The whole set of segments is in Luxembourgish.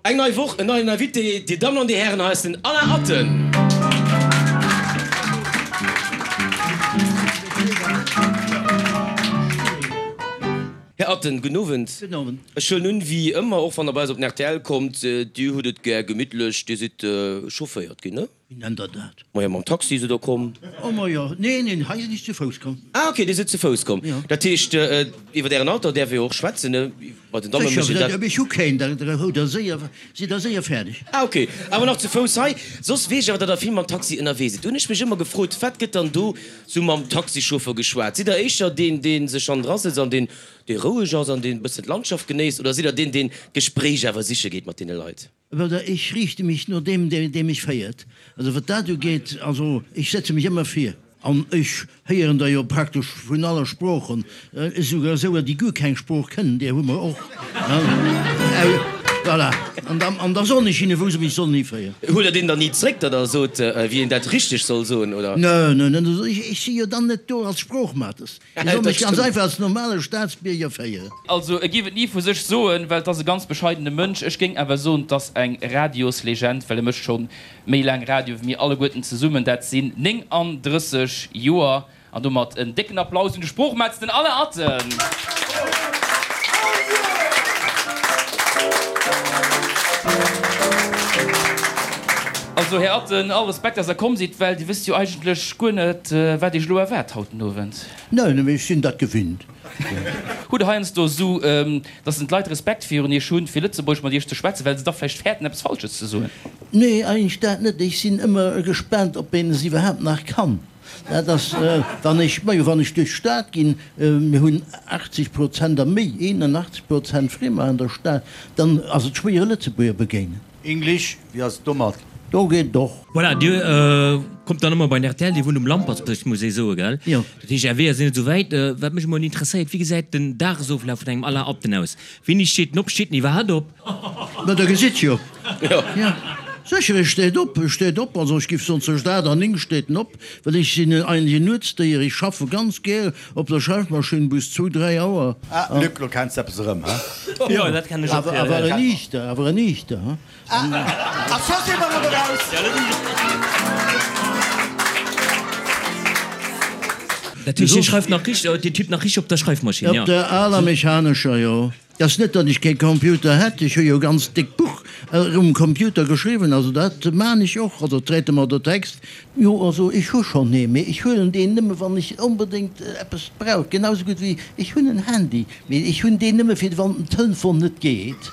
Eng nei Woch, en neien Invité, Dir Dammen an Dir Hären, hei ass den Alain Atten. Här Atten, gudden Owend. Gudden Owend. Ech huelen un, wéi ëmmer, och wann Der bei eis op den rtl kommt, Dir hutt et gär gemittlech, Dir sidd chaufféiert ginn, ne? Wéi nennt Der dat? Majo, mam Taxi sidd Der komm. Oh majo, neen, neen, hei sinn ech zu Fouss komm. Ah ok, Dir sidd zu Fouss komm. Jo. Dat heescht, iwwer Ären Alter däerf ee jo och schwätzen, ne? Bei den Damme mécht een dat. Sécher, ech hu keen, da hutt Der séier, sidd Der séier fäerdeg. Ah ok, awer nach zu Fouss hei. Soss weess ech awer, datt Der vill mam Taxi ënnerwee sidd. Do hunn ech mech ëmmer gefrot, wat gëtt dann do sou mam Taxichauffer geschwat? Sidd Der éischter deen, dee sech hannendra sëtzt an deen, dee roueg ass an deen e bëssen d'Landschaft genéisst, oder sidd Der deen, deen d'Gespréich awer siche geet mat deene Leit? Oder ech riichte mech no deem, dee mech féiert. Also wat dat ugeet, also ech setze mech ëmmer vir. An ech héieren der jo praktesch vun alle Sproochen, esouguer esouer, déi guer keng Sprooch kënnen, där hu mer och. Voilà. An da, an da soen ech hinne wou se mech sollen hiféieren. Huelt Der deen dann ni zréck, datt Der sot, wéi een dat richteg soll soen, oder? Nö, nö, nö, ech si jo dann net do als Sproochmates. Ech soll mech ganz einfach als normale Staatsbierger féieren. Also e géif et ni vu sech soen, well 't ass e ganz bescheidene Mënsch. Ech géing awer soen, 't ass eng Radioslegend, well e mécht scho méi laang Radio wéi mir alleguerten zesummen. Dat sinn 39 Joer. An domat en décken Applaus un de Sproochmetz, den Alain Atten! Also Här Atten, all Respekt, dass Der komm sidd, well Dir wësst jo eigentlech guer net, wat Iech elo erwaart haut den Owend. Neen, mee ech sinn dat gewinnt. Hutt Der heiansdo esou, dass en d'Leit Respekt virun Iech hunn, fir Lëtzebuergesch mat Iech ze schwätzen, well se da vläicht fäerten, eppes Falsches ze soen? Nee, eigentlech dat net. Ech sinn ëmmer gespaant, ob een es iwwerhaapt nach kann. Dat ass, wann ech, majo, wann ech duerch d'Stad ginn, mir hunn 80 Prozent a méi, 81 Prozent Friemer an der Stad, dann ass et schwéier e Lëtzebuerger begéinen. English, wéi ass et domat? Do geet et och. Voilà, Dir kommt dann ëmmer bei den rtl, Dir wunnt um Lampertsbierg, muss ee soen, gell? Jo. Dat heescht, Är Weeër sinn net esou wäit. Wat mech emol interesséiert, Wéi gesäit den Dagesoflaf vun engem Alain Atten aus? Wéini steet en op? Steet en iwwerhaapt op? Ma der gesitt jo. Jo. Sécher, e steet op, e steet op. Also ech giff soen, zwëscht 8 an 9 steet en op, well ech sinn eigentlech en Nuetsdéier. Ech schaffe ganz gär op der Schreifmaschinn bis zwou, dräi Auer. Ah, Luc, lo kenns de eppes erëm, he? Jo, dat kennen ech och. Awer en Iichter, awer en Iichter, he? A scho si mer erëm eraus! Dat heescht, Dir schreift nach richteg, Dir tippt nach richteg op der Schreifmaschinn, jo? Op der aler mechanescher, jo. Et ass net, datt ech kee Computer hätt, ech hu jo e ganz déckt Buch um Computer geschriwwen, also dat maan ech och, also Traitement de texte. Jo, also ech hu schonn ee, mee ech huelen deen nëmme wann ech onbedéngt eppes brauch, genau sou gutt wéi ech hunn en Handy, mee ech hunn deen nëmme fir wann den Telefon net geet.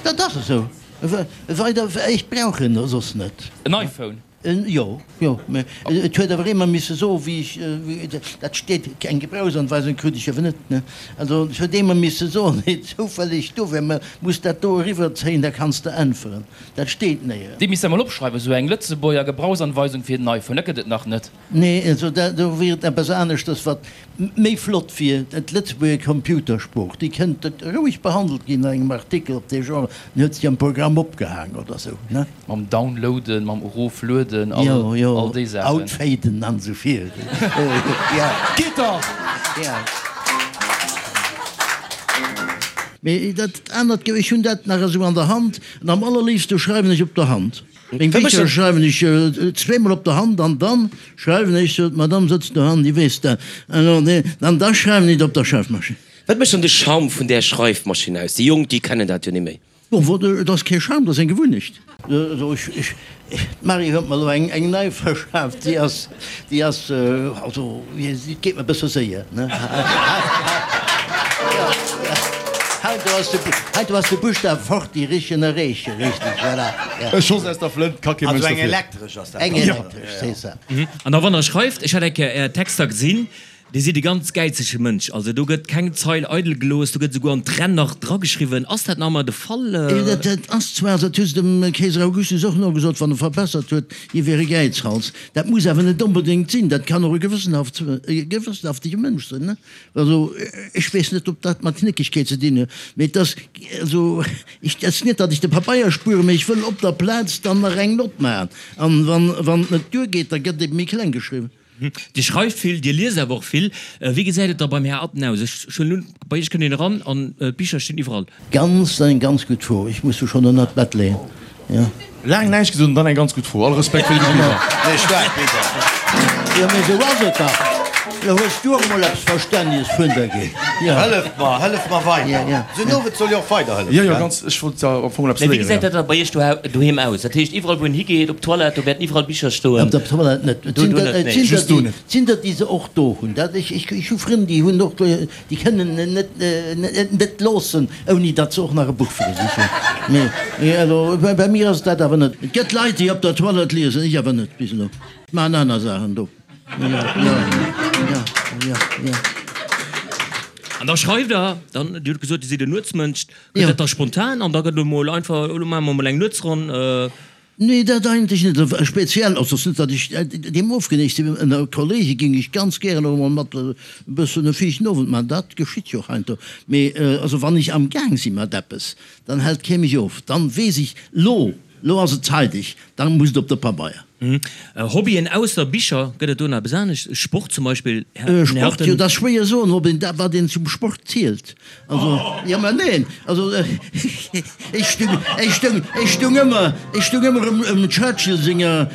Dat ass esou, weider, ech brauch en soss net. En iPhone? Jo, jo, mä et huet awer ee mer misse soen, wéi ech, dat steet, eng Gebrauchsanweisung krut ech awer net, ne? Also et huet ee mer misse soen, deen zoufälleg do wär, mä muss dat do eriwwerzéien, da kanns de äntweren. Dat steet néierens. Déi misst Der mol opschreiwen, esou eng Lëtzebuerger Gebrauchsanweisung fir den iPhone, dat gëtt et nach net. Nee, also dat do wier et eppes aneschters, wat méi flott wier, d'Lëtzebuerger Computersprooch, déi kënnt roueg behandelt ginn an engem Artikel op dee Genre, den huet sech am Programm opgehaang oder sou, ne? Mam Downloaden, mam Eroflueden, all Jo, jo, all déi Saachen. Outfaden an esou vir, jo. Geet dach! Jo. Mee dat anert, ech hunn dat nach esou an der Hand, an am allerléifste schreiwen ech op der Hand. Meng Bicher schreiwen ech zweemol op der Hand an dann schreiwen ech, sou, d'Madame sëtzt do hannen, déi weess dat, an da schreiwen ech et op der Schreifmaschinn. Wat mécht dann de Charme vun där Schreifmaschinn aus? Déi Jonk, déi kennen dat jo ni méi. Bon, et ass kee Charme, et ass eng Gewunnecht. D'Marie huet mer elo eng nei verschaaft, déi ass, déi ass, also, et geet mer e bësse séier, ne? Hei do ass de Buschtaf fort, déi richen erreechen, richtig, voilà, ja. E Schoss aus der Flënt, ka kee Mënsch dofir. Also eng elektresch ass dat dann. Eng elektresch, c'est ça. An da wann Der schreift, ech hat eng Kéier Är Texter gesinn, Dir sidd e ganz gäizege Mënsch, also do gëtt keng Zeil eidel gelooss, do gëtt esouguer an d'Renn nach drageschriwwen. Ass dat nach ëmmer de Fall? Dat ass zwar, dat hu se dem Keeser Augustus och nogesot, wann e verbessert huet, hie wier e Gäizhals. Dat muss awer net onbedéngt sinn, dat kann och e gewëssenhaftege Mënsch sinn. Also ech weess net, ob dat mat Knéckegkeet ze dinn huet, mee et ass, also ech, et ass net, datt ech de Pabeier spueren, mee ech wëll op der Plaz dann nach eng Nott maachen. An wann et net duergeet, da gëtt ebe méi kleng geschriwwen. Dir schreift vill, Dir liest awer och vill. Wéi gesäit et da beim Här Atten aus? Ech hunn elo, bei Iech kënnt een eran an d'Bicher stinn iwwerall. Ganz, eng ganz gutt Fro. Ech muss se schonn ënnert d'Bett leeën, jo. Laang näischt gesot an dann eng ganz gutt Fro. All Respekt fir déi gutt Bicher. Nee, staark Bicher. Jo, mee esou ass et dach. Lo hues du och emol eppes Verstänneges vun der ginn. Jo. Hëlleft mer, hëlleft mer weider. Jo, jo. Esou en Owend soll jo och weiderhëllefen, Jo, jo, gell? ganz. Ech wollt am Fong emol eppes Mee wéi léieren, gesäit jo. dat da bei Iech doheem aus? Dat heescht, iwwerall wou een higeet, op d'Toilette, do wäerten iwwerall Bicher stoen? Op der Toilette net. Et Do, sinn do der, net, et nee. sinn der, Just do déi, net. et sinn der, déi se och do hunn. Dat, ech, ech, ech hu Frënn, déi hunn och do, Déi kënnen en net, net loossen, ouni datt se och nach e Buch fir sech hunn. Mee also bei mir ass et dat awer net. Et gëtt Leit, déi op der Toilette liesen, ech awer net bis elo. Ech maachen aner Saachen do. Jo, jo, jo, jo. An da schreift Der dann, Dir hutt gesot, Dir sidd en Nuetsmënsch, gëtt dat da spontan an da gëtt elo mol einfach, elo maache mer mol eng Nuetsronn? Nee, dat eigentlech net. Also speziell ass et net, datt ech deem ofgeneigt sinn. Ënner Kollege géing ech ganz gären och emol mat e bëssen e fiichten Owend maachen. Dat geschitt jo och heiansdo. Mee also wann ech amgaang si mat eppes, dann hält kee mech of. Dann weess ech, lo, lo ass et zeideg, dann muss et op de Pabeier. Hobbyen ausser Bicher, gëtt et do nach eppes anescht? Sport zum Beispill, Här Sport, Harten? jo, dat ass schwéier soen, ob een dat, wat een zum Sport zielt. Also, jo, mä neen, also ech stung, ech stung, ech stung ëmmer, ech stung ëmmer ëm, ëm Churchill senger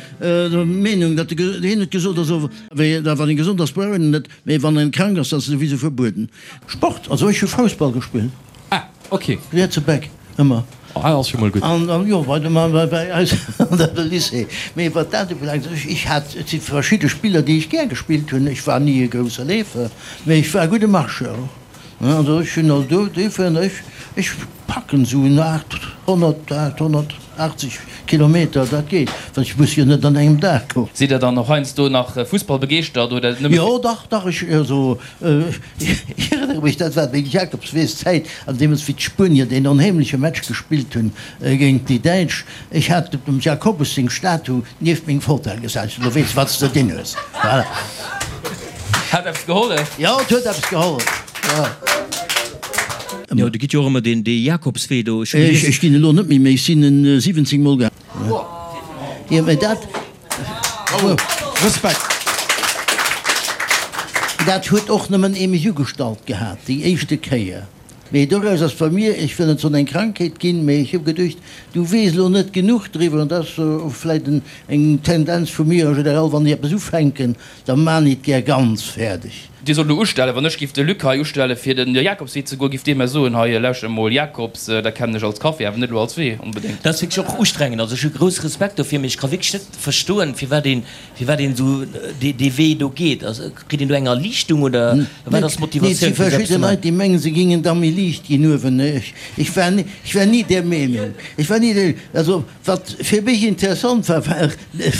Meenung, datt e, hien huet gesot, also wéi, da wann ee gesond ass, brauch een en net, mä wann een krank ass, dann ass e souwisou verbueden. Sport, also ech hu Foussball gespillt. Ah, ok. Rietse Back, ëmmer. Ah, ass jo mol gutt. An, an jo, bei dem, bei, bei eis an der Lycée. Mee wat dat ubelaangt, ech, ech hat, et si verschidde Spiller, déi ech gär gespillt hunn. Ech war ni e grousse Leefer, mee ech war e gudde Marcheur och. Also ech hunn also do, duerfir, ech, ech packen esou en 800, 880 Kilometer, dat geet, well ech muss jo net an engem Dag goen. Sidd Der dann och heiansdo nach Fussball begeeschtert oder nëmme fir. Jo, dach, dach, ech, also ech erënnere mech, dat war meng Jakobsweeszäit, an deemools wéi d'Spuenier deen onheemleche Match gespillt hunn géint déi Däitsch. Ech hat dem Jacobus seng Statu nieft meng Fotell gesat, ech sot, Lo weess de, wat s de dinn hues. Voilà. Hat eppes gehollef? Jo, et huet eppes gehollef, jo. Jo, do gitt jo och ëmmer deen dee Jakobswee do. Ech hu gelies. Ech ginn elo net méi, mee ech sinn en 17 mol gaangen. Jo, mee dat. Bravo! Respekt! Dat huet och nëmmen ee mech ugestallt gehat, déi éischte Kéier. Mee doraus ass bei mir, ech wëll net soen eng Krankheet ginn, mee ech hu geduecht, du weess elo net genuch driwwer, an dat ass och vläicht eng Tendenz vu mir en général, wann ech eppes ufänken, da maan ech et gär ganz fäerdeg. Dir sollt elo ustellen, wann ech giff de Luc hei ustellen fir den Jakobswee ze goen, giff dee mer soen, hei lauschter emol Jakobs, dat kennen ech als Café, awer net elo als Wee onbedéngt. Dat ass wierklech och ustrengend, also ech hu grousse Respekt dofir, mee ech ka wierklech net verstoen, firwat een Firwat een esou dee Wee do geet? Kritt een do eng Erliichtung oder wat ass Nee, et si d'Motivatioun fir esou eppes verschidde ze maachen? Leit, déi mengen, se gingen da méi liicht ginn uewen. Ech war ni, ech war ni där Meenung. Ech war ni där, also wat fir mech interessant war, war,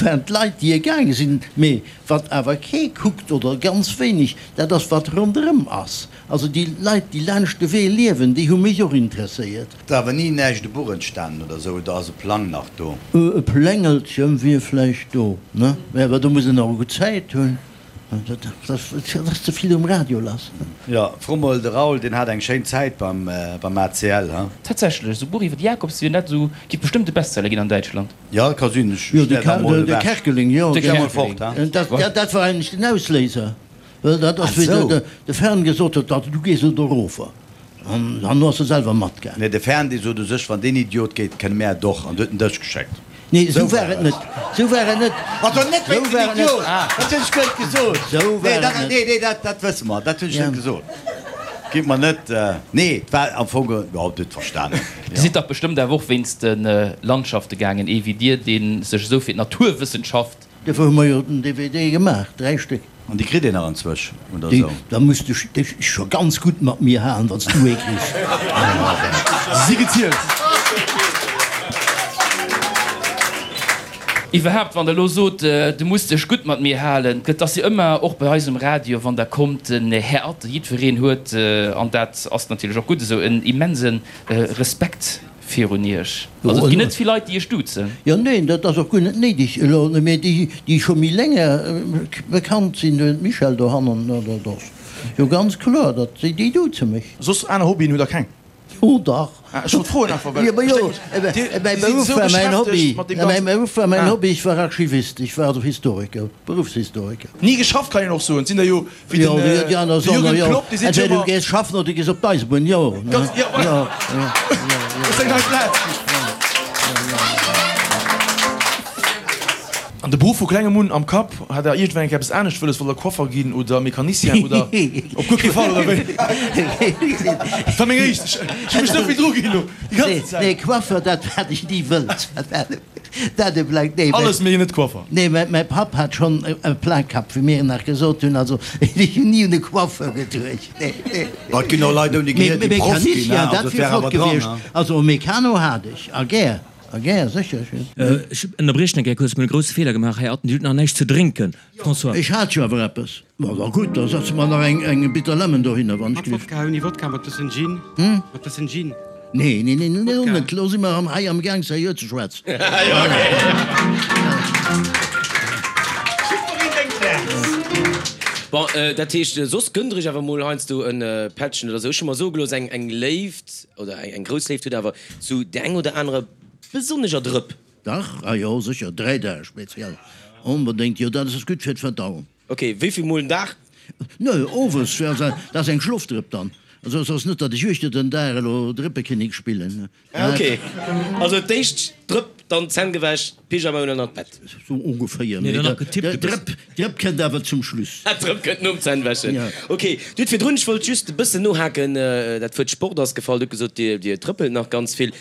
waren d'Leit, déi e gaange sinn. Mee wat awer kee kuckt oder ganz wéineg, dat ass wat ronderëm ass. Also déi Leit, déi laanscht de Wee liewen, déi hu mech och interesséiert. Ass awer ni näischt e Buch entstanen oder sou, oder ass e Plang nach do? E Plängelchen wier vläicht do, ne? Mä awer do muss een och gutt Zäit hunn. Dat ass ze vill um Radio lass. Jo, fro mol de Raoul, deen hat eng schéin Zäit beim ACL, he? Tatsächlech, esou Buch iwwer de Jakobswee, dat esou giff bestëmmt e Bestseller ginn an Däitschland. Jo, ka sinn. Ech Jo, de stär da mol ewech. Kerkeling, jo. Ech stär mol fort, he? Dat war eigentlech den Ausléiser. Well dat ass, wéi de Fern gesot huet, dat du gees elo dorofer. An herno ass e selwer matgaangen. Nee, de Fern, dee sot u sech, wann deen Idiot geet, kënne mär et och. An du huet en dech geschéckt. Nee, esou war et net. Esou war et net. Also net Esou wéinst war dem et net. Idiot! Dat hunn ech guer net gesot. Esou war Nee, et dat, net. nee, nee, dat, dat wësse mer. Dat hunn ech Ja. net gesot. Gitt mer net, nee, et war am Fong, jo, Dir hutt verstanen. Dir sidd dach bestëmmt awer och wéinst de Landschafte gaangen, ee wéi Dir, dee sech esou fir d'Naturwëssenschaft. Dofir hu mer jo den DVD gemaach, 3 Stéck. An déi kritt een nach anzwësch, oder Déi, esou? da muss de dech scho ganz gutt mat mir halen, wann s du ee kriss. Si gezielt. Iwwerhaapt, wann Der elo sot, du muss dech gutt mat mir halen, et ass jo ëmmer, och bei eis um Radio, wann Der kommt, den Här Atten, jiddwereen huet, an dat ass natierlech och gutt esou, en immense Respekt Virun Iech. Also et ginn net vill Leit, déi Iech duzen. Jo, neen, dat ass och guer net néideg elo. Mee déi, déi scho méi länger bekannt sinn, den Michel dohannen, dat ass jo ganz kloer, datt déi, déi duze mech. Soss aner Hobbyen hutt Der keng? Jo dach. Ah, ech wollt froen einfach, well Jo, ma jo, ech denken, dir, mäi dir sidd Beruff esou war mäin beschäftegt Hobby. mat deem Mäi ganzen. Beruff war mäin Ah. Hobby, ech war Archivist, ech war also Historiker, Beruffshistoriker. Ni geschafft kann een och soen. Et sinn der jo wéi Jo, den, déi déi aner de soen, Jürgen jo, Klopp, déi seet jo entweder du ëmmer. gees schaffen oder du gees op d'Eisebunn, jo, ne? Ganz, jo, Jo, jo, jo, Dat ass eng nei Plaz. An de Beruff vu klengem un am Kapp, hat der iergendwann eng Kéier eppes anescht wëlles, wollt der Coiffer ginn oder Mecanicien oder op guer kee Fall, oder wéi? Dat war meng éischt, ech hu mech esou vill dru ginn elo déi ganzen Zäit. Nee, Coiffeur, dat hat ech ni wëllt. Dat e bleift, nee. Alles mee net Coiffer. Nee, mäi Papp hat schonn e Plakapp, wéi mir nach gesot hunn, also ech hunn ni un e Coiffeur geduecht, nee, nee. Ma et ginn och Leit ouni Gehier, déi Proff ginn, Mecanicien, also dat et wier wär flott awer dran, gewiescht. ne? Also e Mecano hat ech, a gär. A gär, sécher. Ech ënnerbriechen eng Kéier kuerz, mir hunn e grousse Feeler gemaach, Här Atten, Dir hutt nach näischt ze drénken. François. Ech hat jo awer eppes. Ma da gutt, da setze mer nach eng Bitter Lemon dohinner, wann ech Mat gelift. Wodka, ouni Wodka, mat bëssen Gin, mat bëssen Gin. Nee, nee, nee, nee, Wodka. net. Elo si mer hei am Gaang seriö ze schwätzen. Bon, dat heescht, soss gënnt Der Iech awer mol heiansdo e Pättchen oder esou. Ech hu mer soe gelooss, eng Léift oder eng grouss Léift huet awer Zu där eng oder anerer besonneger Drëpp. Dach, ah jo, sécher, 3 Dag speziell, onbedéngt, jo, dat ass gutt fir d'Verdauung. Ok, wéi vill mol den Dag? Nö, owes, dat ass eng Schlofdrëpp dann, also et ass net, datt ech uechter den Dag elo Drëppekinnek spillen. Ah ok, also d'éischt d'Drëpp, dann d'Zänn gewäsch, Pyjama un an an d'Bett. Sou ongeféier, mee d'Drëpp, d'Drëpp kënnt awer zum Schluss. D'Drëpp kënnt nom Zännwäschen. Ok, Dir hutt virdrun, ech wollt just e bëssen nohaken, dat Wuert Sport ass gefall, Dir hutt gesot, Dir, Dir trëppelt nach ganz vill.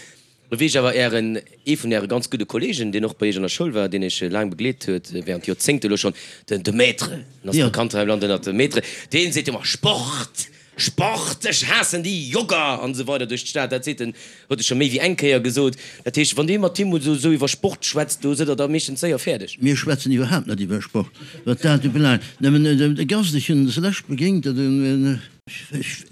Lo weess ech awer, Ären, ee vun Äre ganz gudde Kollegen, deen och bei Iech an der Schoul war, deen Iech laang begleet huet, während Joerzéngte elo schonn, den, de Maître, en ass bekannt hei am Land ënnert dem Maître, deen seet ëmmer, Sport! Sport, ech haassen déi Jogger an esou weider duerch d'Stad. Dat seet en, huet e scho méi wéi eng Kéier gesot. Dat heescht, wann Dir mat him esou esou iwwer Sport schwätzt, do sidd Der da meeschtens séier fäerdeg. Mir schwätzen iwwerhaapt net iwwer Sport, wat dat ubelaangt. Nëmmen de Gast, ech hunn en zeläscht begéint,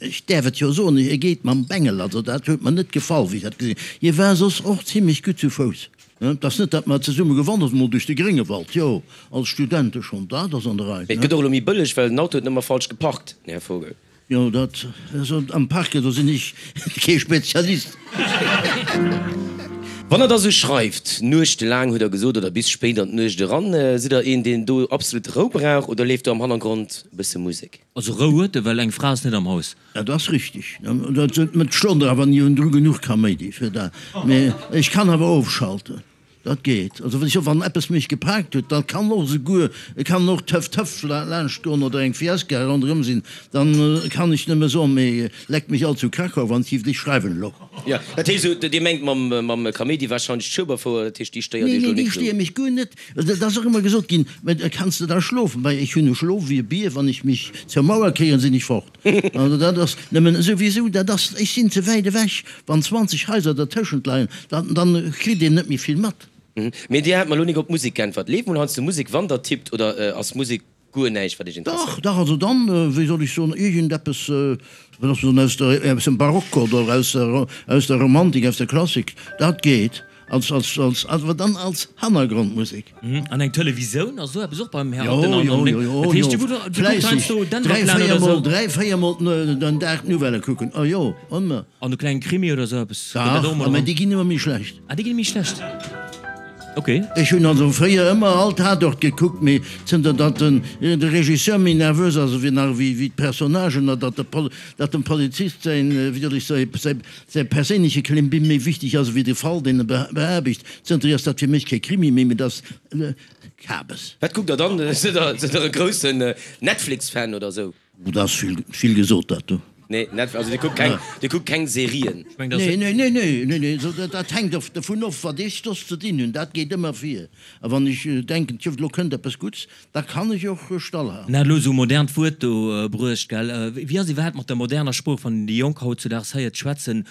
ech däerf et jo soen, e geet mam Bengel. Also dat huet mer net gefall, wéi ech dat gesinn hunn. Hie war soss och zimlech gutt zu Fouss. Et ass net, datt mer zesumme gewandert hunn, mol duerch de Gréngewald, jo, als Studente schonn, dat ass an der Rei. Mee et gëtt och elo méi bëlleg, well den Auto huet net mer falsch geparkt, Här Vogel. Jo, dat, also am Parken, do sinn ech kee Spezialist. Wann Der da sou schreift, nuechtelaang hutt Der gesot, oder bis spéit an d'Nuecht eran, sidd Der een, deen do absolut Rou brauch oder leeft do am Hannergrond e bësse Musek? Also Rou huet e, well eng Fra ass net am Haus. Dat ass richtig. Dat stonnt awer ni un dru genuch Kaméidi fir dat. Mee ech kann awer ofschalten. Dat geet. Also wann ech wann eppes mech gepaakt huet, da kann och esouguer, et kann och Töff Töff laanscht goen oder eng Fiesta ronderëm sinn, dann kann ech nëmme soen, mee leckt mech all zu Krakau, wann ech iwwer dech schreiwen elo. Jo, dat heescht esou, Dir mengt mam mam Kaméidi wahrscheinlech d'Schueberfouer, dat heescht déi stéiert Nee, Iech nee, elo déi nik esou? stéiere mech guer net. Dat ass och ëmmer gesot ginn, mä kanns de da schlofen? Well ech hunn e Schlof wéi e Bier, wann ech mech zur Mauer kéieren, sinn ech fort. Also dat ass nëmmen souwisou, dat ass, ech sinn ze wäit ewech, wann 20 Haiser dertëschent leien, dann, dann kritt een net méi vill mat. Mee Dir hat mer elo nik op d'Musek geäntwert. Leeft mol heiansdo Musek, wann Der tippt, oder ass Musek guer näischt, wat Iech Dach, interesséiert? dach, also dann, wéi soll ech soen, iergendeppes, wat ass soen, aus der, aus dem Barock oder aus der, aus der Romantik, aus der Klassik, dat geet. Als, als, als, awer dann als Hannergrondmusek. An eng Televisoun ass esou eppes och beim Här Jo, Atten an jo, an jo, jo, Dat heescht, jo, du kucks du kucks fläisseg. heiansdo Dräi, Denver-Clan véier oder Mol, esou. dräi, véier Mol den Dag d'Nouvellë kucken, oh jo, ëmmer. An e klenge Krimi oder esou eppes, gëtt Dach, dat och emol mä eran? déi ginn ëmmer méi schlecht. Ah, déi ginn méi schlecht, ok. Ech hunn also fréier ëmmer all Tatort gekuckt, mee zënter datt den de Regisseur méi nervös ass ewéi nach ewéi d'Personnagen, a datt de Pol, datt dem Polizist säin, wéi soll ech soen, säi Säi perséinleche Klimbim méi wichteg ass ewéi de Fall, deen e beaarbecht. Zënterhier ass dat fir mech kee Krimi méi, mee dat ass Kabes. Wat kuckt der dann? Sidd der e groussen Netflix-Fan oder sou? Dat ass vill gesot, dat do. Nee, Netflix, also dir kuckt keng, dir kuckt keng Serien? Nee, nee, nee, nee, nee, nee, dat hänkt of dovun of, wat ech soss ze dinn hunn. Dat geet ëmmer vir. A wann ech denken, tjo, elo kënnt eppes Gutts, da kann ech och stallhalen. En hat elo esou e modernt Wuert do bruecht, gell? Wéi ass iwwerhaapt mat der moderner Sprooch, wann een déi Jonk hautzudaags héiert schwätzen,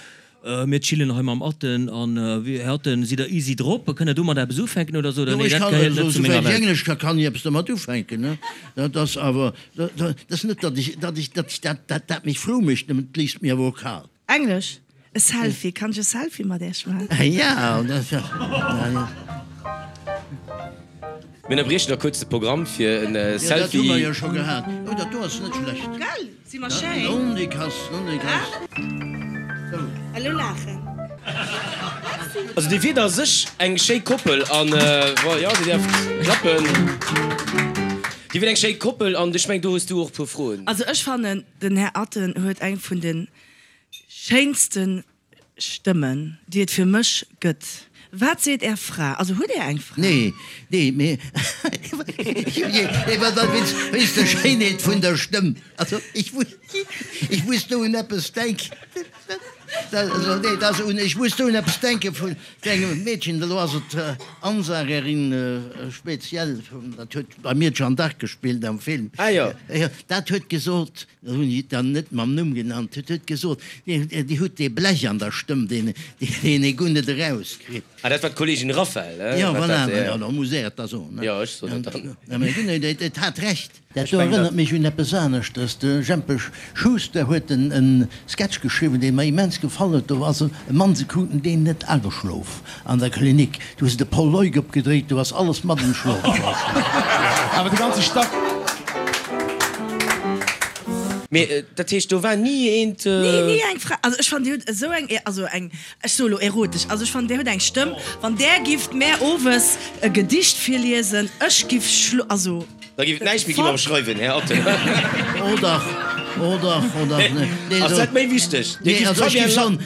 Mir chillen hei mam Atten an, Här Atten, sidd Der easy drop? Kënnt Der domat eppes ufänken oder sot Der, Jo, nee, ech dat kann, gehéiert net esou zu menger wäit ech Welt? Englesch ka, kann ech eppes domat ufänken, ne? Dat ass awer, dat ass net, datt ech, datt ech, datt ech dat, dat, dat mech frou mécht, nëmmen et léisst mir awer och kal. Englesch, E Selfie, kann ech e Selfie mat Iech maachen? Ja, dat ja, ja. Mir ënnerbriechen da kuerz de Programm fir en Ja, dat hu Selfie. mer jo scho gehat. Oh, dat do ass net schlecht. Gell, si mer schéin? Non, déi kass, non, déi kass. Sou. Elo laachen. Also dir wiert a sech eng schéi Koppel an, jo, dir däerft klappen. Dir wiert eng schéi Koppel an ech mengen, do hues du och e puer Froen. Also ech fannen, den Här Atten huet eng vun de schéinste Stëmmen, déi et fir mech gëtt. Wat seet Är Fra? Also hutt Är eng Fra? Nee, nee, mee wéinst der Schéinheet vun der Stëmm. Also ech muss do un eppes denken. Also nee, dat ass un, ech muss do un eppes denke vun engem Meedchen, elo ass et Ansagerin speziell, dat huet bei mir d'Jeanne d'Arc gespillt am Film. Ah jo. Dat huet gesot, Dat hunn ech dann net mam Numm genannt, huet huet gesot, Dir hutt dee Blech an der Stëmm, deen ee guer net erauskritt. Ah, dat war d'Kolleegin Raphael, he? Jo, voilà, jo, da muss är et da soen, ne? Jo, ech soen et dann. Mä gutt, et hat Recht. Dat do erënnert mech un eppes aneschtes. De Jempe Schuster huet en Sketch geschriwwen, dee mer immens gefall huet. Do ass e Mann, se kruten deen net ageschlof an der Klinik. Du hues de Paul Leuk opgedréit, du ass alles mat an Schlof komm. Awer de ganze Stack. Mee dat heescht, do war ni eent. Ni, ni eng Fra. Also ech fannen, Dir hutt esou eng, also eng, ech soe lo erotesch, also ech fannen, Dir hutt eng Stëmm, wann där gifft mär owes e Gedicht virliesen, ech giff schlo, also. Da géif et näischt méi gi mam Schreiwen, Här Atten. Oh dach, oh dach, oh dach. Nee, Ass dat méi wichteg? Nee, also ech géif soen,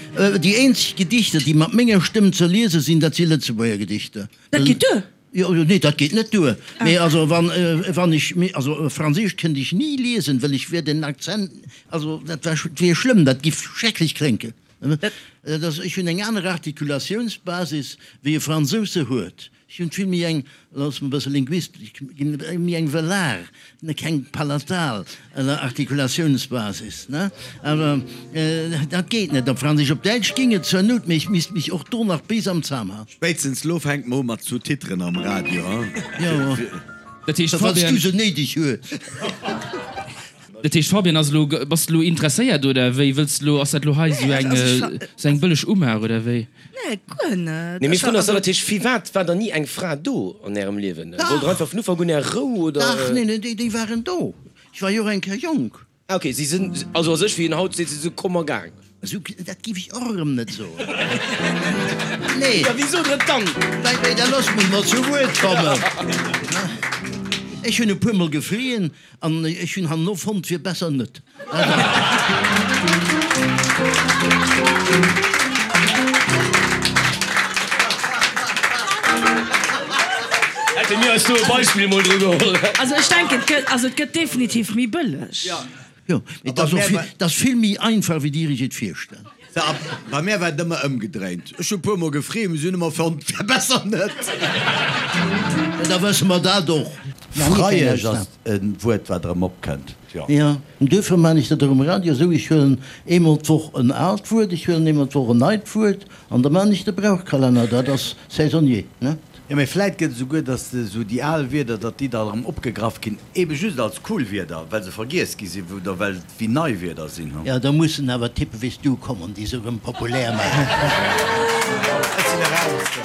déi eenzeg Gedichter, déi mat menger Stëmm ze liese sinn, dat si Lëtzebuerger Gedichter. Dat geet duer. Jo, jo, nee, dat geet net duer. Mee also wann, wann ech, also Franséisch kënnt ech ni liesen, wëll ech wier den Akzent, also dat war, wier schlëmm, dat giff schrecklech klénken. Dat ass, ech hunn eng aner Artikulatiounsbasis, wéi e Fransous se huet. Ech hunn vill méi eng, looss mer e bësse linguistesch ginn, méi eng velar, keng palatal Artikulatiounsbasis, ne? Awer dat geet net op Franséisch. Op Däitsch géing et zur Nout, mee ech misst mech och do nach bis am Zam halen. Spéitstens lo fänkt mer u mat Sous-titren am Radio, hein? Jo, Dat heescht, falls du Fabian. se néideg hues. Dat heescht, Fabian, ass elo, bass de elo interesséiert oder wéi? Wëlls de elo, ass dat elo hei esou eng, esou eng bëlleg Umaach oder wéi? Nee, guer net. Nee, mee Frun, ass dat heescht, firwat war dann ni eng Fra do an ärem Liewen? Wollt der einfach vun Ufank un är Rou oder? Dach, nee, nee, déi waren do. Ech war jo och eng Kéier jonk. Ah ok, si sinn also a sech, wéi een haut seet, si si komm a gaang. Esou, dat géif ech och erëm net soen. Nee. Da wéi sot Der et dann? Mä, mä da loosst mech mol zu Wuert kommen. Ech hunn e puermol gefrien an ech hunn herno fonnt, wier besser net. Hätte mir eis do e Beispill mol dru geholl. Also ech denken, et gëtt, also et gëtt definitiv méi bëlleg. Jo, mee et ass och vill, et ass vill méi einfach, wéi Dir Iech et virstellt. Bei mär war et ëmmer ëmgedréint. Ech hu e puer mol gefreet, mee si hunn ëmmer fonnt, wär besser net. Da wësse mer dat och. Freiesch ass e Wuert, wat erëm opkënnt, jo. Jo, duerfir maan ech dat och um Radio esou, ech huelen eemol d'Woch en aalt Wuert, ech huelen eemol d'Woch en neit Wuert an da maan ech de Brauchkalenner, dat ass saisonnier, ne? Jo, mee vläit gëtt et esouguer, datt esou déi al Wierder, datt déi da erëm opgegraff ginn, ebe just als cool Wierder, well se vergiess gi sinn oder well et wéi nei Wierder sinn. Jo, da mussen awer Typen wéi s du kommen, déi se erëm populär maachen. Ech sinn eraus.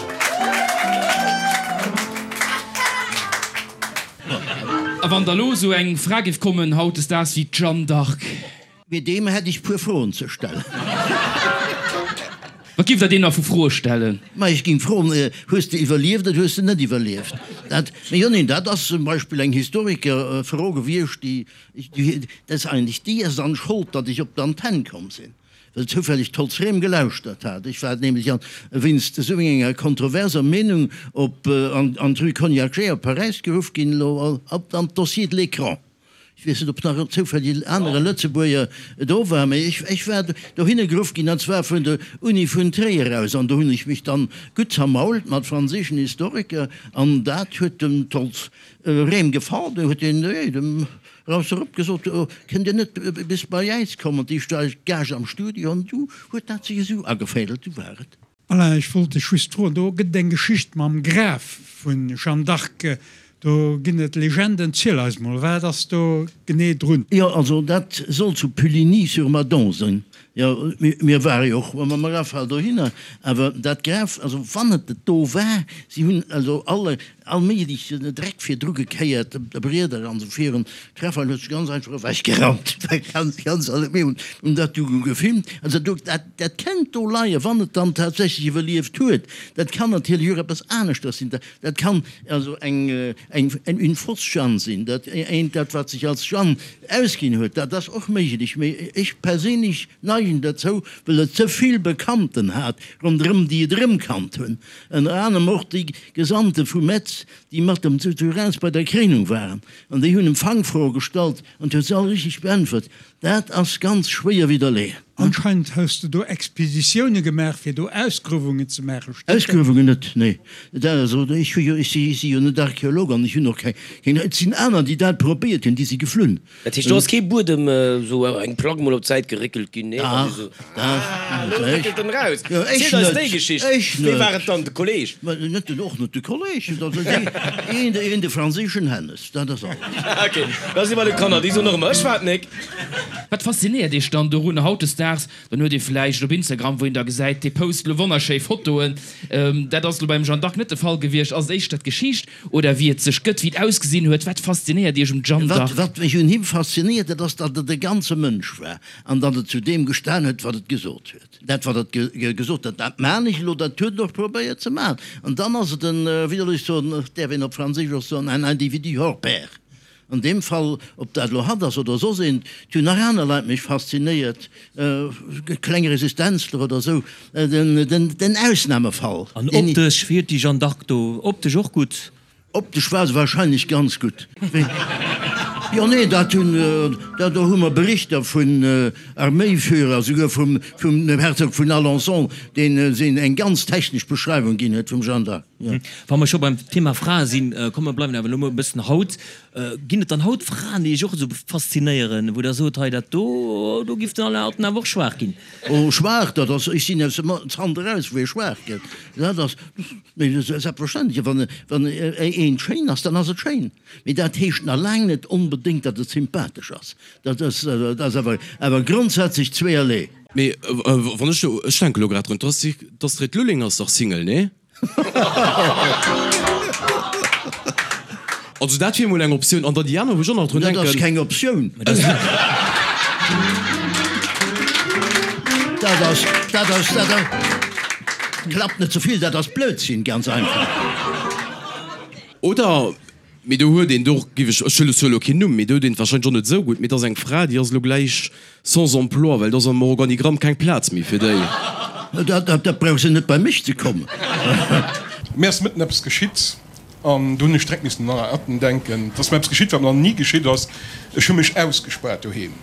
A wann da lo esou eng Fra géif kommen hautdesdaags wéi d'Jeanne d'Arc? Mee deem hätt ech puer Froen ze stellen. Wat giff der deem da vu Froe stellen? Ma ech ging froen, Hues de iwwerlieft oder hues de net iwwerlieft? Dat, jo, neen, dat ass zum Beispill eng Historikerfro gewiescht, déi, dat ass eigentlech déi ass dann Schold, datt ech op d'Antenn komm sinn, well zoufälleg d'Holz Rem gelauschtert hat. Ech war nämlech an, wéinst esou enger kontroverser Meenung op, an, an d'Rue Cognacq-Jay op Paräis geruff ginn, elo op an d'Dossier de l'écran. Ech weess net, ob nach zoufälleg en anere Lëtzebuerger do war, mee ech, ech war dohinner geruff ginn, an zwar vun der Uni vun Tréier aus. An do hunn ech mech dann gutt zermault mat franséischen Historiker, an dat huet dem Tolz Rehm gefall. Do huet deen dem Raus erop gesot, Kënnt Dir net bis bei äis kommen, déi Gage am Studio? An du huet dat sech esou ageféidelt, du war et. Alain, ech wollt dech just froen, do gëtt et eng Geschicht mam Graf vun Jeanne d'Arc, do ginn et Legenden, ziel eis mol, wat ass do genee drun? Jo, also dat soll zu Puligny-sur-Madon sinn. Jo, mir ware jo och mam Rafale dohinner, awer dat Graf, also wann et et do war, si hunn also alle, all méiglechen Dreck virdru gekéiert, Brieder an esou virun. D'Rafale huet sech ganz einfach ewechgerammt, ganz, ganz alle, mir hunn dat du gefilmt. Also do, dat, dat kennt do leien, wann et dann tatsächlech iwwerlieft huet. Dat kann natierlech och eppes aneschters sinn. Dat kann also eng, eng, une fausse Jeanne sinn, dat eent, dat wat sech als Jeanne ausginn huet, dat ass och méiglech, mee ech perséinlech neigen derzou, well et ze vill Bekannten hat ronderëm, déi et erëmkannt hunn, ënner anerem och déi Gesandte vu Metz, déi mat dem zu Reims bei der Kréinung waren, an déi hunn em Fangfroe gestallt an huet se all richteg beäntwert. Dat ass ganz schwéier widderleeën. Anscheinend hues de do Expeditioune gemaach fir do Ausgruewungen ze maachen, stëmmt dat? Ausgruewungen net, nee. Dat also, ech hu jo, ech si si jo net Archeolog an ech hunn och keng, keng, et sinn aner déi dat probéiert hunn, déi si geflunn. Dat heescht do ass kee Buedem, esou eng Plack mol op d'Säit geréckelt ginn, nee? Dach, dach. Ah, elo réckelt en eraus. Jo, ech Ziel eis net, déi Geschicht. ech Wee war net. et dann, de Kolleg? Mä net den, och net de Kolleg, dat ass een, een de franséischen Hennes, dat ass alles. Ok, da si bei de Kanner, déi soen och ëmmer, ech war et nik. Wat faszinéiert Iech dann dorun hautdesdaags? Dann huet ee vläicht op Instagram, wou een da gesäit, dee post elo wonnerschéi Fotoen. Dat ass elo beim Jeanne d'Arc net de Fall gewiescht. Ass et éischter d'Geschicht oder wéi et sech gëtt, wéi et ausgesinn huet? Wat faszinéiert Iech um Jeanne d'Arc? Wat mech un him faszinéiert, dat ass, datt et e ganze Mënsch war an datt et zu deem gestan huet, wat et gesot huet. Dat, wat et gesot huet, dat maan ech elo, dat huet en och probéiert ze maachen. An dann ass et en, wéi soll ech soen, däerf een op Franséisch och soen, un individu hors pair. An deem Fall, ob dat elo hatt ass oder soss een, et hunn nach aner Leit mech faszinéiert, kleng Resistenzler oder esou, den Ausnahmefall. An optesch, wéi huet déi Jeanne d'Arc do optesch och gutt? Optesch war se wahrscheinlech ganz gutt. Jo, nee, dat hunn, do hu mer Berichter vun Arméiführer, souguer vum Herzog vun Alençon, deen eng ganz technesch Beschreiwung ginn huet vum Jeanne d'Arc. Wa mer scho beim Thema Frae sinn, komm mer bleiwen awer elo mol e bëssen haut. Ginn et dann haut Fraen, déi Iech och esou faszinéieren, wou Der sot, hei dat do, do giff den Alain Atten awer och schwaach ginn? Oh, schwaach, dat ass, ech sinn aus dem Zant eraus, wou ee schwaach gëtt. Dat ass, mee selbstverständlech, wann, wann eent schéin ass, dann ass et schéin. Mee dat heescht nach laang net onbedéngt, datt et sympathesch ass. Dat ass, dat ass awer, awer grondsätzlech zweeërlee. Mee wann ech elo, ech denke elo grad drun, d'Astrid Lulling ass dach Single, nee? Also dat wier mol eng Optioun. An dann déi aner, wou ech och nach drun denken. Dat ass keng Optioun. Dat ass, dat ass, dat ass, klappt net ze vill, dat ass Blödsinn, ganz einfach. Oder Mee do huet een, do giff ech, ech huele zwar elo keen Numm, mee do huet een et wahrscheinlech och net esou gutt, mee et ass eng Fra, déi ass elo gläich sans emploi, well do ass am Organigramm keng Plaz méi fir déi. Dat, dat brauch se net bei mech ze kommen. Mir ass mëtten eppes geschitt an do hunn ech direkt missen un Alain Atten denken. Et ass mir eppes geschitt, wat mir nach ni geschitt ass, Ech hu mech ausgespaart doheem.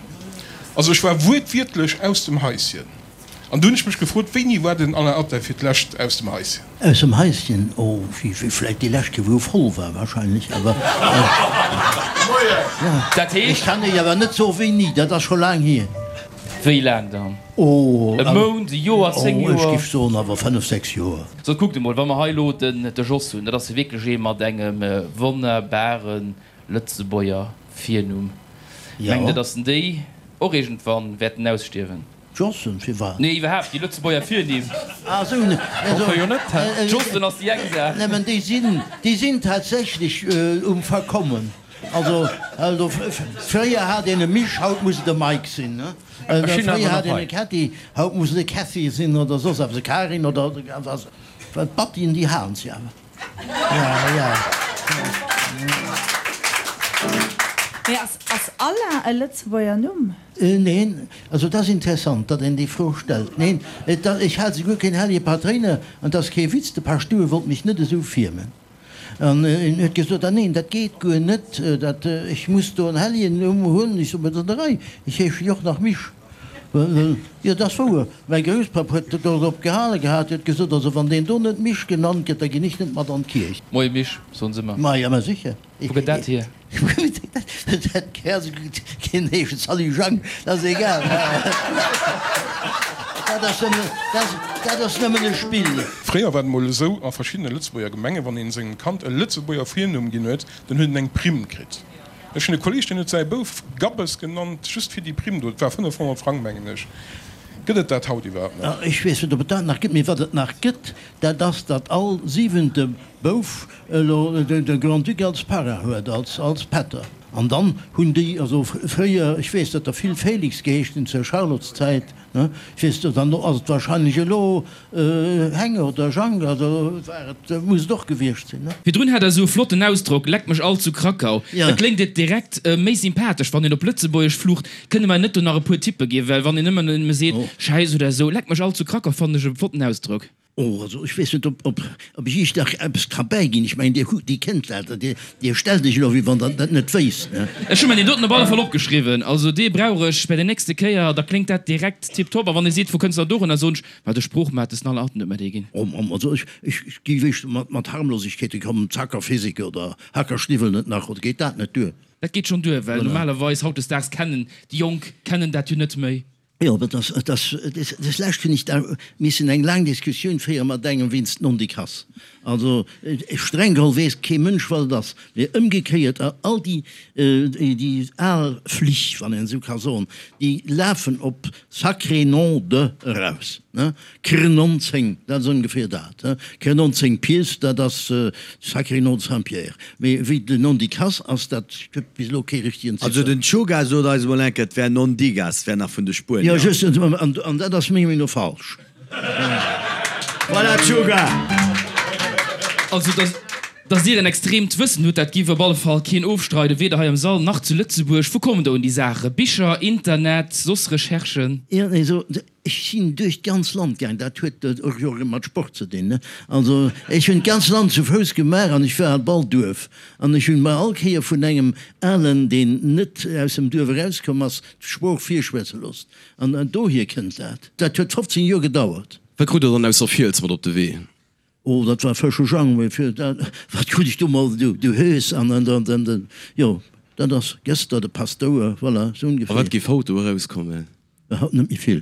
Also ech war wuertwiertlech aus dem Haischen. An du hunn ech mech gefrot, wéini war den Alain Atten fir d'lescht aus dem Haischen? Aus dem Haischen? Oh, wéi vläit déi lescht Kéier, wou e voll war wahrscheinlech, awer Dat ech heescht? kann Iech awer net soe wéini, dat ass scho laang hier. Wéi laang dann? Oh, E Mount, e Joer, 10 oh, ech Joer? giff soen awer 5, 6 Joer. Sot, kuckt emol, wa mer hei elo den de Jos hunn, dat ass jo wierklech ee mat engem wonnerbare Lëtzebuerger Virnumm. Mengt Der, datt en déi och iergendwann wäerten ausstierwen? Jossen, firwat? Nee, iwwerhaapt déi Lëtzebuerger Virnimm. Ah sou, ne, also, jo net, hä? Jossen ass déi eng Saach. Nëmmen déi sinn, déi sinn tatsächlech um Verkommen. Also, also fréier hat een e Misch, haut muss et e Mike sinn, ne? Fréier hat een e Kätti, haut muss et e Käthy sinn oder soss eppes, e Karin oder was. D'Battien, déi halen si awer. Mee ass ass Alain e Lëtzebuerger Numm? Neen, also et ass interessant, datt een déi Fro stellt. Neen, et ass, ech hat souguer keen hellege Patréiner, an et ass kee Witz, de Paschtouer wollt mech net esou firmen. An en huet gesot, ah neen, dat geet guer net, dat, ech muss do en hellegen Numm hunn. Ech sot, mä dat ass an der Rei, ech heesche jo och nach Misch. Jo, dat ass wouer. Mäi Grousspapp huet dorop gehale gehat, huet gesot, also wann deen do net Misch genannt gëtt, da ginn ech net mat an d'Kierch. Moie Misch, soen se ëmmer. Ma jo, ma sécher. Wou gëtt dat hier? Dat keen heeschen Salut Jang, dat ass egal. Dat ass nëmmen, dat ass nëmmen e Spill. Fréier war et mol esou a verschiddene Lëtzebuerger Gemengen, wann een sengem Kand e Lëtzebuerger Virnumm ginn huet, dann huet en eng Primm kritt. Ech hunn e Kolleeg, deen huet säi Bouf Gabbes genannt, just fir déi Primm do. Et war 500 Frang, mengen ech. Gëtt et dat haut iwwerhaapt nach? Ech weess net, ob et dat nach gëtt, mee wat et nach gëtt, dat ass, datt all siwente Bouf elo de Grand-Duc als Parrain huet, als Pätter. An dann hunn déi, also fréier, ech weess, datt der vill Félix geheescht hunn zur Charlotteszäit, ne, ech weess, dann ass et wahrscheinlech elo Heng oder Jang, also war et, muss et och gewiescht sinn, ne. Virdrun hat der esou e flotten Ausdrock, Leck mech all zu Krakau. Da kléngt et direkt méi sympathesch, wann een op Lëtzebuergesch flucht. Kënne mer net do nach e puer Tippe ginn? Well wann een ëmmer nëmme seet Schäiss oder esou, Leck mech all zu Krakau fannen ech e flotten Ausdrock. Oh, also ech weess net, ob, ob, ob ech Iech nach eppes ka bäiginn. Ech mengen, Dir hutt, Dir kennt dat, Dir, Dir stellt Iech elo, wéi wann Der dat net wéisst, ne? Ech hu mer deen doten op alle Fall opgeschriwwen. Also dee brauch ech bei der nächste Kéier, da kléngt dat direkt tiptop. A wann ee seet, wou kënns de da dorunner, soen ech, Ma de Sproochmates den Allerten huet mer dee ginn. Oh Mamm, also ech, ech, ech géif éischter mat, mat Harmlosegkeete kommen, Zackerphysik oder Hackerschniwwel net nach, oder geet dat net duer? Dat geet schonn duer, well normalerweis hautdesdaags kennen déi Jonk kennen dat jo net méi. Jo, dat ass, dat ass, des Lescht hunn ech da missen eng laang Diskussioun féiere mat engem wéinst Nondikass. Also streng geholl weess kee Mënsch, wat et ass. Mee ëmgekéiert, all déi, déi al Flich, wann een esou ka soen, déi lafen op sacré nom de eraus. Krnonzéng, dat ass ongeféier dat. Krnonzéng Pieds, dat ass sacré nom de Saint-Pierre. Mee wéi den Nondicasse ass, dat gëtt bis elo kee richtegen Ziffer. Also den Choga sot eis emol eng Kéier, et wär Nondigas, et wär nach vun de Spuenier. Jo, just, an dat ass menger Meenung no falsch. Voilà, Choga! Also, dass Dir en extreemt Wëssen hutt, dat giff op alle Fall keen ofstreiden, weder hei am Sall nach zu Lëtzebuerg. Wou kommen der un déi Saachen? Bicher, Internet, soss Recherchen? Jo, also Ech sinn duerch d'ganz Land gaang, dat huet och jo erëm mat Sport ze dinn, ne? Also ech hunn d'ganz Land zu Fouss gemaach an ech war an all Duerf an ech hunn mer all Kéier vun engem Alen, deen net aus dem Duerf erauskomm ass, d'Sprooch virschwätze loossen. An dohier kënnt dat. Dat huet 15 Joer gedauert. Wat krut Der dann aus der Fiels mat op de Wee? Oh, dat war frësche Jang, mee fir dat, wat krut ech do mol, du, du Hös an an dann, dann, den, jo, dat ass gëster de Paschtouer, voilà, sou A ongeféier. wat géif haut do erauskommen? Haut net méi vill.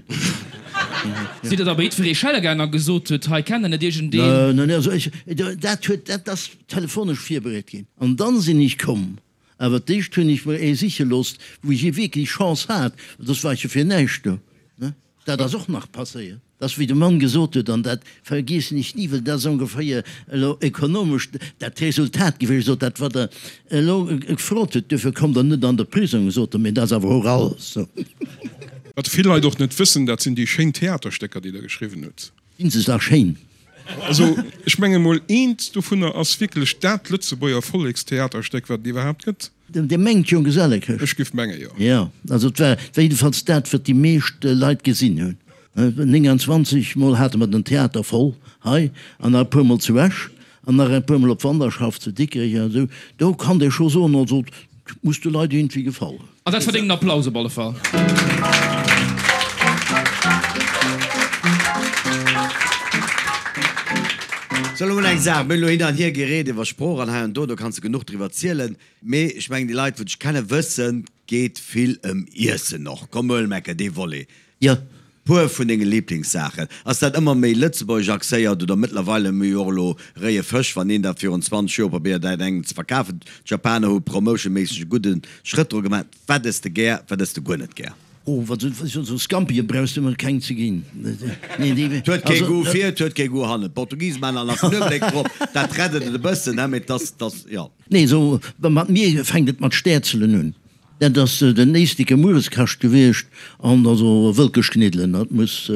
Sidd Der da bei jiddweree schelle gaang a gesot hutt, hei kennt Der net iergendeen? Neen, also ech, dat huet, dat ass telefonesch virbereet ginn an dann sinn ech komm. Awer d'éischt hunn ech mer ee siche loosst, wou ech wierklech Chance hat, soss war ech jo fir näischt do, ne? Dat ass och nach passéiert, dass wéi de Mann gesot huet, an dat vergiessen ech ni, well dat ass ongeféier elo ekonomesch dat Resultat gewiescht, sot, dat wat Der elo gefrot hutt, duerfir kommt Der net an de Prisong, sot e, mee dat ass awer och alles. Wat vill Leit och net wëssen, dat sinn déi schéin Theaterstécker, déi Der geschriwwen hutt. Sinn se da schéin? Also, ech menge mol, eent dovunner ass wierklech dat Lëtzebuerger Vollekstheaterstéck, wat et iwwerhaapt gëtt. Dir mengt Jonggesellekëscht? Ech giff menge jo. Jo, also et war jiddefalls dat, wat déi meescht Leit gesinn hunn. 29 mol hate mer den Theater voll hei an nach e puer mol zu Esch an nach e puer mol op Wanderschaft zu Dikrech an esou. Do kann ee scho soen, also et muss de Leit iergendwéi gefall hunn. An dat verdéngt en Applaus op alle Fall. Sou, elo mol eng Saach, mir hunn elo hin an hier gereet iwwer Sprooch an hei an do, do kanns de genuch driwwer zielen. Mee ech mengen, déi Leit, wou dech kennen, wëssen, 't geet vill ëm Iessen och. Komm, huel Mecke dee Volet. Jo. Puer vun denge Liblingssaachen. Ass dat ëmmer méi lëtzebuergesch axéiert oder mëttlerweile hu mir jo och elo réie Fësch, wann een dat virun 20 Joer probéiert hat engem ze verkafen. D'Japaner hu promotionméisseg e gudde Schrëtt dru gemaach. Wat ëss de gär, wat ëss de guer net gär? Oh, wat sou Scampie brauchs de mer keng ze ginn. Nee, déi. Et huet kee Goût vir, et huet kee Goût hannen. D'Portugise maachen nach Knuewelek drop, dat rett et e bëssen, mee et ass, jo. Nee, sou mat mir fänkt et mat Stäerzelen un. Dat ass den éissteke Muereskascht gewiescht an also Wëlkeschkniddelen, dat muss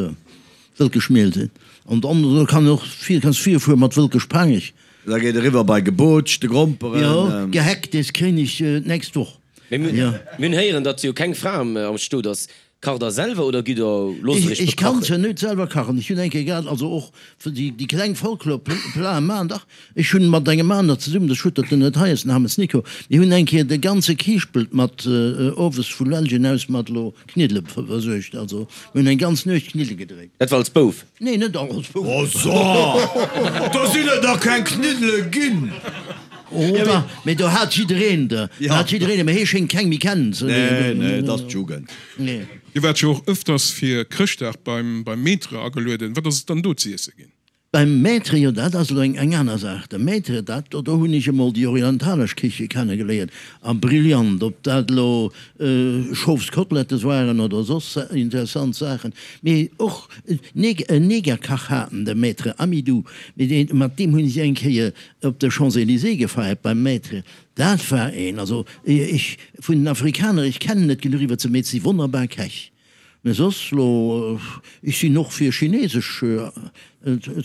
Wëlkeschmiel sinn. An dann do kann och vir, kanns virfuere mat Wëlkeschpangech. Da geet eriwwer bei Gebootschte Gromperen. Jo, Gehacktes kréien ech d'nächst Woch. Mee mir hunn héieren, datt jo keng Fra am Stot ass. Kacht der selwer oder gitt der, loosst der iech Ech kann se net selwer kachen. Ech hunn eng Kéier gehat, also och déi kleng Folklorplaten maachen, dach, ech hunn mat engem aner zesummen, de Schuttert, den net hei ass, den Hammes Nico, mir hunn eng Kéier de ganze Kiischpelt mat owes vu Lellgen aus mat elo Kniddele versuergt. Also mir hunn eng ganz Nuecht Kniddele gedréit. Dat war als Bouf? Nee, net als Bouf. Oh so, do sinn et nach keng Kniddele ginn! Oh da, mee do hat jiddereen der, do hat jiddereen, mee hee schéngt keng méi kennen ze. Nee, nee, et ass d'Jugend. Nee. Dir waart jo och ëfters fir Chrëschtdag beim beim Maître agelueden. Wat ass et dann do z'iesse ginn? Beim Maître, jo dat ass elo eng eng aner Saach. De Maître, dat do, do hunn ech emol déi orientalesch Kiche kennegeléiert a brillant, ob dat elo Schofskotelettes waren oder soss interessant Saachen. Mee och en Negerkach haten, de Maître Amidou, mee deen, mat deem hunn ech eng Kéier op de Champs-Élysées gefeiert beim Maître. Dat war een, also ech, vun den Afrikaner, ech kennen net genuch iwwert se, mee et si wonnerbar Käch. Mä soss lo, ech sinn och fir Chinesesch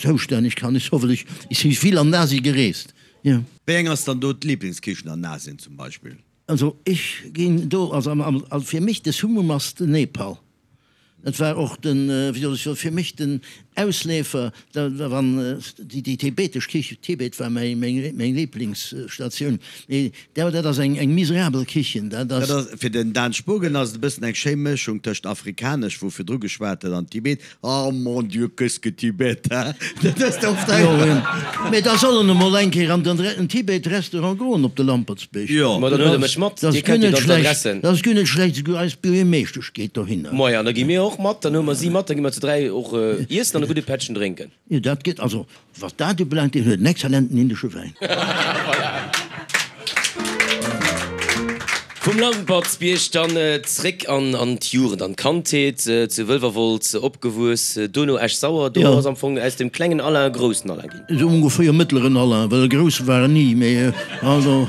zoustänneg, kann ech soen, well ech si vill an Asien gereest, jo. Wéi eng ass dann do d'Liblingskichen an Asien zum Beispill? Also ech ginn do, also fir mech de Summum ass den Nepal. Dat war och den, wéi soll ech soen, fir mech den Ausleefer, da wann déi tibetesch Kichen, Tibet war mäi meng Liblingsstatioun, mee dat ass eng miserabel Kichen, dat ass. Dat ass, fir den Dan Spogen ass et e bëssen eng schéi Mëschung tëscht afrikanesch, wou virdru geschwat huet, an Tibet, oh mon Dieu, qu'est-ce que Tibet, hein? Dat ass oft eng. Jo, mee da soll en emol eng Kéier an den Tibet-Restaurant goen op de Lampertsbierg. Jo. Ma dann huele mech mat, Dir kennt jo dann d'Adressen. Dat ass guer net schlecht, esouguer eis Buergermeeschtesch geet dohinner. Maja, da gi mir och mat, dann huele mer si mat, da gi mer zu 3 och iessen an e gudde Pättchen drénken. Jo, dat gëtt, also wat dat ubelaangt, deen huet en exzellenten indesche Wäin. Voilà. Vum Lampertsbierg dann zréck an an d'Jugend, an d'Kandheet, zu Wëlwerwolz opgewuess, dono Esch-Sauer. Do ass am Fong aus dem klengen Alain e groussen Alain ginn. Esou ongeféier mëttleren Alain, well e grousse war en ni, mee also.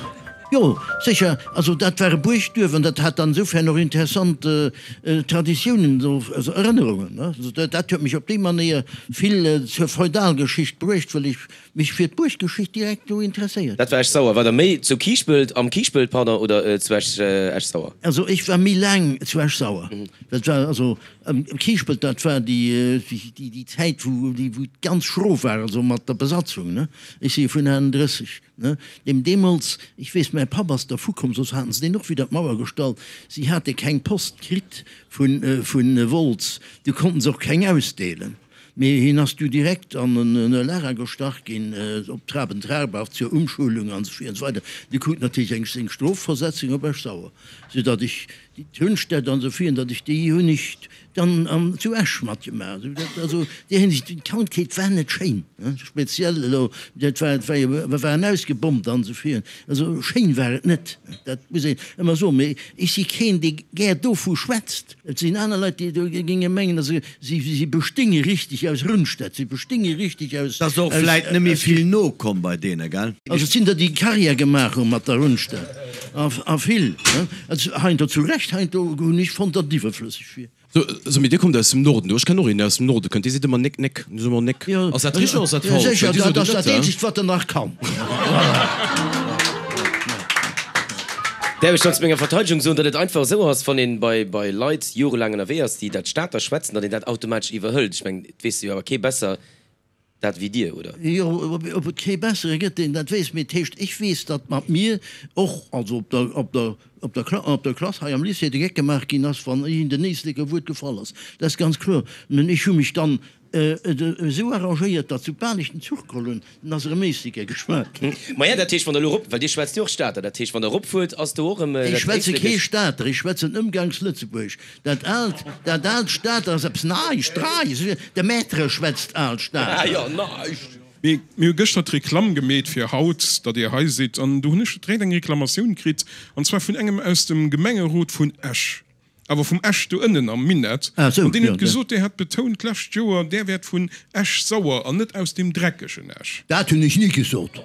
Jo, sécher. Also dat war e Buergduerf an dat hat dann insofern och interessant Traditiounen, also Erënnerungen. Also dat huet mech op déi Manéier vill zur Feudalgeschicht bruecht, well ech mech fir d'Buerggeschicht direkt do interesséiert. Dat war Esch-Sauer. War der méi zu Kiischpelt, am Kiischpelt, pardon, oder zu Esch-Sauer? Also ech war méi laang zu Esch-Sauer. Dat war also am Kiischpelt, dat war déi Zäit, wou et ganz schro war, also mat der Besatzung. Ech si vun 38. Ne, deem deemools, ech weess, mäi Papp ass dervu komm, soss haten se deen och widder d'Mauer gestallt, si hate keng Post kritt vu Wolz, du konnten se och keng ausdeelen, mee hien ass du direkt an e Lager gestach ginn, op Traben-Trarbach zur Umschulung an esou weider. Du krut natierlech eng seng Strofversetzung op Esch-Sauer, soudatt ech déi Turnstätt an esou virun, datt ech déi hunn ech Dann an zu Esch matgemaach. Also déi Hinsicht, d'Kandheet war net schéin, speziell elo, dat war, et war jo, mer waren ausgebombt an esou virun. Also schéin war et net, dat muss een ëmmer soen. Mee ech si keen, dee gär dovu schwätzt. Et sinn aner Leit, déi do géinge mengen, also si, si bestéinge richteg aus Rundstedt, si bestéinge richteg aus. Et ass och vläit net méi vill nokomm bei deene, gell? Also et sinn der, déi Carrière gemaach hu mat der Rundstedt. A vill, heiansdo zu Recht, heiansdo hunn ech fonnt, datt et iwwerflësseg wier. So, so, mee Dir kommt aus dem Norden do. Ech kennen och een, deen aus dem Norde kënnt. Dee seet ëmmer Néck, Néck. Dee seet ëmmer Néck. Ass dat richteg oder ass dat falsch? Sécher, dat ass dat eenzegt, wat en nach kann. Däerf ech dann zu menger Verteidegung soen, datt et einfach esou ass, wann een bei, bei Leit jorelaang ënnerwee ass, déi dat Stater schwätzen, datt een dat automatesch iwwerhëlt? Ech mengen, et weess jo awer kee besser dat wéi Dir, oder? Jo, ob et kee bessere gëtt, deen dat weess, mee et heescht, ech weess, datt mat mir och, also op der, op der, op der Kla, op der Klass hei am Lycée, de Geck gemaach ginn ass, wann iergend en Éisleker Wuert gefall ass. Dat ass ganz kloer. Mä ech hu mech dann esou arrangéiert, datt soubal ech den Zuch geholl hunn, dann ass erëm Éisleker geschwat ginn. Maja, dat heescht, wann Der elo erop, well Dir schwätzt jo och Stater, dat heescht, wann Der eropfuert, ass do och erëm dat Ech schwätze kee Stater, ech schwätzen Ëmgangslëtzebuergesch. Dat aalt, dat aalt Stater ass eppes Neischt, Dreies, de Maître schwätzt aalt Stater. Jo, neischt. Mir hu gëschter d'Reklamm gemeet fir haut, datt Dir hei sidd, an do hunn ech direkt eng Reklamatioun kritt, an zwar vun engem aus dem Gemengerot vun Esch, awer vum Esch do ënnen am Minett, Ah sou, an deen jo, huet gesot, Dir hätt betount d'lescht Joer, Där wäert vun Esch-Sauer an net aus deem dreckegen Esch. Dat hunn ech ni gesot.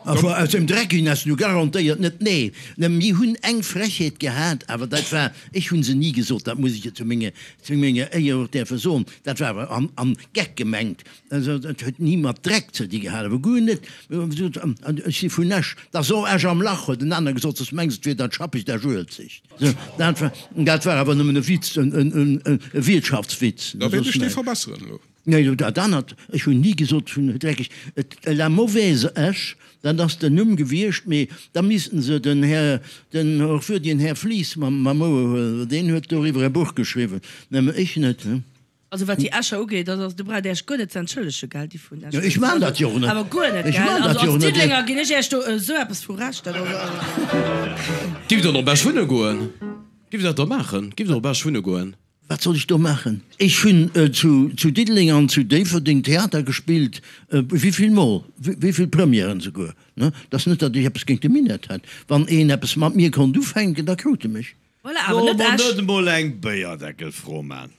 Awer aus dem Dreck ginn ass nu garantéiert net. Nee, mir hunn eng Frechheet gehat, awer dat war, ech hu se ni gesot, dat muss ech jo zu menge, zu menger Éier och däerfe soen, dat war awer am, am Geck gemengt. Also dat huet ni mat Dreck ze di gehat, awer guer net. Mir hu gesot, ech si vun Esch, da so Esch am Lach, huet en aner gesot, soss mengs et wier dat schappegt Esch-Uelzecht. Sou, dat war, dat war awer nëmmen e Witz, en, en, en, e Wiertschaftswitz, Da wäert soss ech dee näischt. verbesseren elo. Nee, dat anert, ech hunn ni gesot vun dreckeg, et la mauvaise Esch, dat ass den Numm gewiescht, mee da missten se den Här, den hochwürdegen Här Flies mam mam Ouer huelen, well deen huet doriwwer e Buch geschriwwen, nëmme ech net. Also wat déi Escher ugeet, dat ass, do braucht Dir Iech guer net ze entschëllegen, gell, déi vun Esch. Jo, ech maan dat jo och net. Awer guer net, Ech gell. maan dat Also jo och als net. Diddelenger ginn ech Iech do esou eppes vu Recht, dat ass also. Giff der op Esch wunne goen? Giff der dat da maachen? Giff der op Esch wunne goen? Wat soll ech do maachen? Ech hunn zu Diddeleng an zu Déifferdeng Theater gespillt, wéivill Mol, wéivill Premièren souguer. Et ass net, datt ech eppes géint de Minett hätt. Wann een eppes mat mir konnt ufänken, da krut e mech. Voilà, awer net Soll mer Esch. net emol eng Béierdeckelfro man?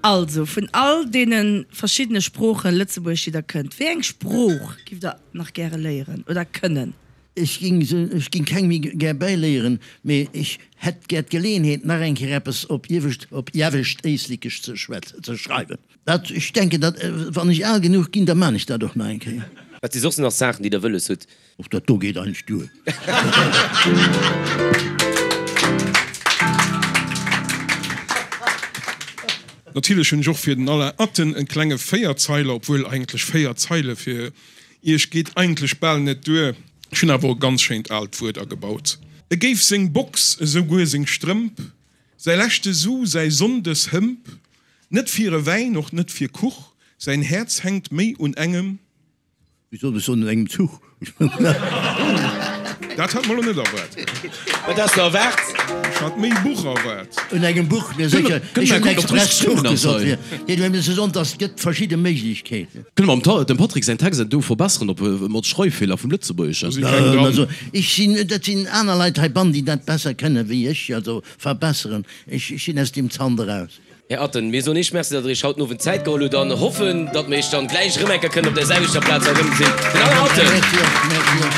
Also, vun all deene verschiddene Sproochen, Lëtzebuergesch, déi der kënnt, wéi eng Sprooch giff der nach gäre léieren oder kënnen? Ech ging se, ech ging keng méi gär bäiléieren, mee ech hätt gär d'Geleeënheet nach eng Kéier eppes op Iewescht, op Iewescht Éislekesch ze schwätzen, ze schreiwen. Dat, ech denken, dat, wann ech al genuch ginn, da man ech dat och nach eng Kéier. Wat si soss nach Saachen, déi Der wëlles hutt? Och dat do geet eigentlech duer. Natierlech hunn ech och fir den Alain Atten en klenge Véierzeiler, obwuel eigentlech 4 Zeile fir Iech geet eigentlech bal net duer. Ech hunn awer och e ganz schéint aalt Wuert agebaut. E géif seng Box, esou guer seng Strëmp, säi leschte Su, säi Sonndeshëmp, net fir e Wäin, och net fir Kuch, säin Häerz hänkt méi un engem. Wéi soll ech soen, un engem Zuch. Dat hat mer lo net erwaart. Wat has de erwaart? Ech hat méi Buch erwaart. Un engem Buch, mir sécher. Ech hunn express Zuch gesot. Fir dir ze soen, dass et gëtt verschidde Méiglechkeeten. Kënne mer dem Patrick säin Text do verbesseren op mat Schreiffeeler vum Lëtzebuergeschen? Also ech sinn, dat sinn aner Leit heibannen, déi dat besser kënnen wéi ech, also verbesseren. Ech sinn aus deem Zant eraus. Här Atten, mir soen Iech Merci, datt Der Iech haut den Owend Zäit geholl hutt an hoffen, datt mir Iech dann gläich erëm eng Kéier kënnen op där selwechter Plaz erëmgesinn. Den Alain Atten. Merci och, merci och.